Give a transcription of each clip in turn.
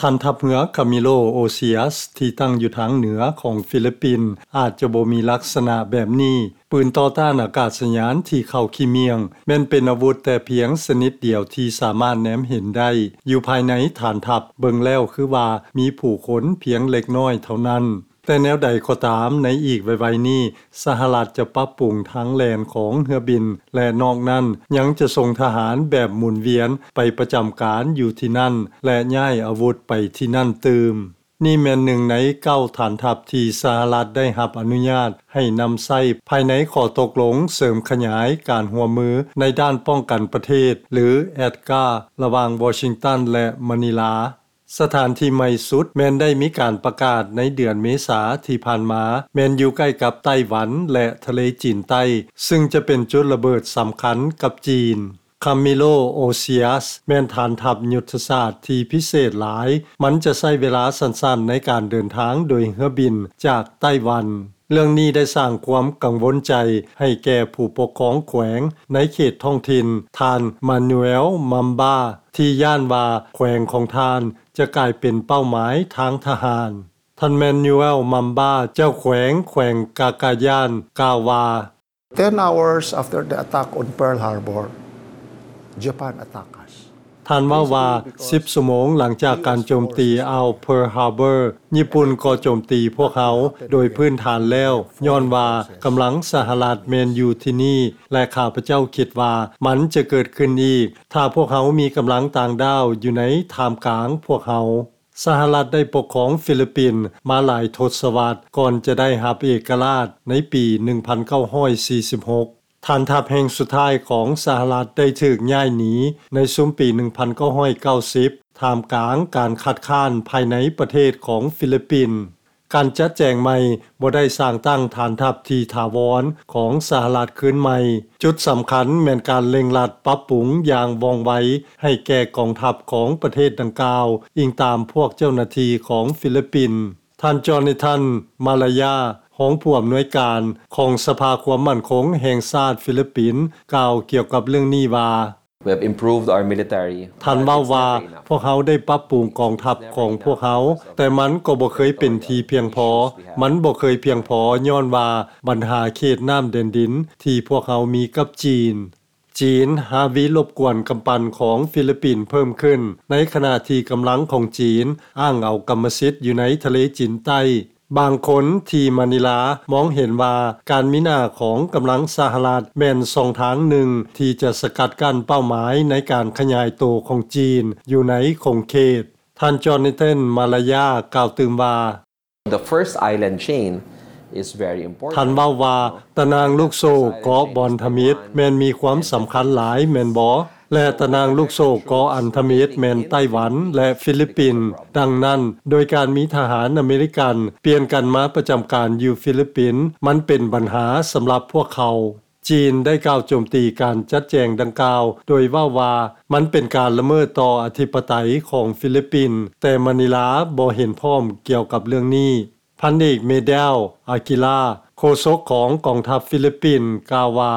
ຖານທັບເຮືອ Camilo Osias ທີ່ຕັ້ງຢູ່ທາງເໜືອຂອງຟີລິບປິນ ອາດຈະບໍ່ມີລັກສະນະແບບນີ້. ປືນຕໍ່ຕ້ານອາກາດສະຍານທີ່ເຂົ້າຂີ້ໝ້ຽງ ແມ່ນເປັນອາວຸດແຕ່ພຽງຊະນິດດຽວທີ່ສາມາດແນມເຫັນໄດ້ ຢູ່ພາຍໃນຖານທັບ. ເບິ່ງແລ້ວຄືວ່າມີຜູ້ຄົນພຽງເລັກນ້ອຍເທົ່ານັ້ນ. ແຕ່ແນວໃດກໍຕາມ, ໃນອີກໄວໆນີ້ ສະຫະລັດຈະປັບປຸງທາງແລ່ນຂອງເຮືອບິນ ແລະ ນອກນັ້ນຍັງຈະສົ່ງທະຫານແບບໝູນວຽນໄປປະຈຳການຢູ່ທີ່ນັ້ນ ແລະ ຍ້າຍອາວຸດໄປທີ່ນັ້ນຕື່ມ. ນີ້ແມ່ນໜຶ່ງໃນເກົ້າຖານທັບທີ່ສະຫະລັດໄດ້ຮັບອະນຸຍາດໃຫ້ນຳໃຊ້ພາຍໃນຂໍ້ຕົກລົງເສີມຂະຫຍາຍການຮ່ວມມືໃນດ້ານປ້ອງກັນປະເທດ ຫຼື ADKAR ລະຫວ່າງວໍຊິງຕັນ ແລະ ມະນີລາ. ສະຖານທີ່ໃໝ່ສຸດແມ່ນໄດ້ມີການປະກາດໃນເດືອນເມສາທີ່ຜ່ານມາ, ແມ່ນຢູ່ໃກ້ກັບໄຕ້ຫວັນ ແລະ ທະເລຈີນໃຕ້, ຊຶ່ງຈະເປັນຈຸດລະເບີດສຳຄັນກັບຈີນ. Camilo Osias ແມ່ນຖານທັບຍຸດທະສາດທີ່ພິເສດຫຼາຍ. ມັນຈະໃຊ້ເວລາສັ້ນໆໃນການເດີນທາງໂດຍເຮືອບິນຈາກໄຕ້ຫວັນ. ເລື່ອງນີ້ໄດ້ສ້າງຄວາມກັງວົນໃຈໃຫ້ແກ່ຜູ້ປົກຄອງແຂວງໃນເຂດທ້ອງຖິ່ນ, ທ່ານ Manuel Mamba ທີ່ຢ້ານວ່າແຂວງຂອງທ່ານຈະກາຍເປັນເປົ້າໝາຍທາງທະຫານ. ທ່ານ Manuel Mamba ເຈົ້າແຂວງ ແຂວງກາກາຢານ ກ່າວວ່າ, Ten hours after the attack on Pearl Harbor, Japan attacked us. ທ່ານເວົ້າວ່າ, ສິບຊົ່ວໂມງຫຼັງຈາກການໂຈມຕີອ່າວ Pearl Harbor, ຍີ່ປຸ່ນກໍໂຈມຕີພວກເຮົາ. ໂດຍພື້ນຖານແລ້ວ, ຍ້ອນວ່າກຳລັງສະຫະລັດແມ່ນຢູ່ທີ່ນີ້ ແລະ ຂ້າພະເຈົ້າຄິດວ່າມັນຈະເກີດຂຶ້ນອີກ ຖ້າພວກເຮົາມີກຳລັງຕ່າງດ້າວຢູ່ໃນທ່າມກາງພວກເຮົາ. ສະຫະລັດໄດ້ປົກຄອງຟີລິບປິນມາຫຼາຍທົດສະວັດ ກ່ອນຈະໄດ້ຮັບເອກະລາດໃນປີໜຶ່ງພັນເກົ້າຮ້ອຍສີ່ສິບຫົກ. ຖານທັບແຫ່ງສຸດທ້າຍຂອງສະຫະລັດໄດ້ຖືກຍ້າຍໜີໃນຊຸມປີໜຶ່ງພັນເກົ້າຮ້ອຍເກົ້າສິບ ທ່າມກາງການຄັດຄ້ານພາຍໃນປະເທດຂອງຟີລິບປິນ. ການຈັດແຈງໃໝ່ບໍ່ໄດ້ສ້າງຕັ້ງຖານທັບທີ່ຖາວອນຂອງສະຫະລັດຄືນໃໝ່. ຈຸດສຳຄັນແມ່ນການເລັ່ງລັດປັບປຸງຢ່າງວ່ອງໄວໃຫ້ແກ່ກອງທັບຂອງປະເທດດັ່ງກ່າວ, ອີງຕາມພວກເຈົ້າໜ້າທີ່ຂອງຟີລິບປິນ. ທ່ານ Jonathan Malaya ຮອງຜູ້ອຳນວຍການຂອງສະພາຄວາມໝັ້ນຄົງແຫ່ງຊາດຟີລິບປິນ ກ່າວກ່ຽວກັບເລື່ອງນີ້ວ່າ, We have improved our military. ທ່ານເວົ້າວ່າ, ພວກເຮົາໄດ້ປັບປຸງກອງທັບຂອງພວກເຮົາ, ແຕ່ມັນກໍບໍ່ເຄີຍເປັນທີ່ພຽງພໍ. ມັນບໍ່ເຄີຍພຽງພໍຍ້ອນວ່າບັນຫາເຂດນ້ຳແດນດິນທີ່ພວກເຮົາມີກັບຈີນ. ຈີນຫາວິລົບກວນກຳປັ່ນຂອງຟີລິບປິນເພີ່ມຂຶ້ນ, ໃນຂະນະທີ່ກຳລັງຂອງຈີນອ້າງເອົາກຳມະສິດຢູ່ໃນທະເລຈີນໃຕ້. ບາງຄົນທີ່ມານິລາມອງເຫັນວ່າການມີໜ້າຂອງກຳລັງສະຫະລັດແມ່ນຊ່ອງທາງໜຶ່ງທີ່ຈະສະກັດກັ້ນເປົ້າໝາຍໃນການຂະຫຍາຍໂຕຂອງຈີນຢູ່ໃນຂົງເຂດ. ທ່ານ Jonathan Malaya ກ່າວຕື່ມວ່າ, The first island chain is very important. ທ່ານເວົ້າວ່າ, ຕະໜ່າງລູກໂສ້ເກາະບອນທຳອິດແມ່ນມີຄວາມສຳຄັນຫຼາຍແມ່ນບໍ່? ແລະ ຕະໜ່າງລູກໂສ້ເກາະອັນທຳອິດແມ່ນໄຕ້ຫວັນ ແລະ ຟີລິບປິນ. ດັ່ງນັ້ນ, ໂດຍການມີທະຫານອາເມລິກັນປ່ຽນກັນມາປະຈຳການຢູ່ຟີລິບປິນ, ມັນເປັນບັນຫາສຳລັບພວກເຂົາ. ຈີນໄດ້ກ່າວໂຈມຕີການຈັດແຈງດັ່ງກ່າວ ໂດຍເວົ້າວ່າມັນເປັນການລະເມີດຕໍ່ອະທິປະໄຕຂອງຟີລິບປິນ, ແຕ່ມານິລາບໍ່ເຫັນພ້ອມກ່ຽວກັບເລື່ອງນີ້. ພັນເອກ ເມແດວ ອາກິລາ ໂຄສົກຂອງກອງທັບຟີລິບປິນ ກ່າວວ່າ,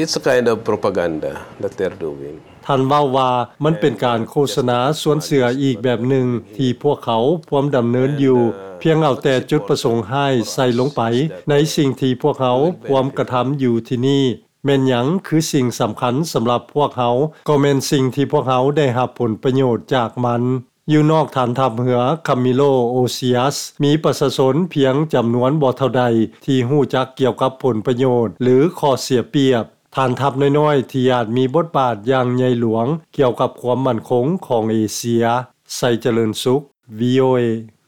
It's a kind of propaganda that they're doing. ທ່ານເວົ້າວ່າ, ມັນເປັນການໂຄສະນາຊວນເຊື່ອອີກແບບໜຶ່ງທີ່ພວກເຂົາພວມດຳເນີນຢູ່, ພຽງເອົາແຕ່ຈຸດປະສົງຮ້າຍໃສ່ລົງໄປໃນສິ່ງທີ່ພວກເຮົາພວມກະທຳຢູ່ທີ່ນີ້. ແມ່ນຫຍັງຄືສິ່ງສຳຄັນສຳລັບພວກເຮົາ? ກໍແມ່ນສິ່ງທີ່ພວກເຮົາໄດ້ຮັບຜົນປະໂຫຍດຈາກມັນ. ຢູ່ນອກຖານທັບເຮືອ Camilo Osias ມີປະຊາຊົນພຽງຈຳນວນບໍ່ເທົ່າໃດທີ່ຮູ້ຈັກກ່ຽວກັບຜົນປະໂຫຍດ ຫຼື ຂໍ້ເສຍປຽບ. ຖານທັບນ້ອຍໆທີ່ອາດມີບົດບາດຢ່າງໃຫຍ່ຫຼວງກ່ຽວກັບຄວາມໝັ້ນຄົງຂອງເອເຊຍ. ໄຊຈະເລີນສຸກ, ວີ ໂອ ເອ.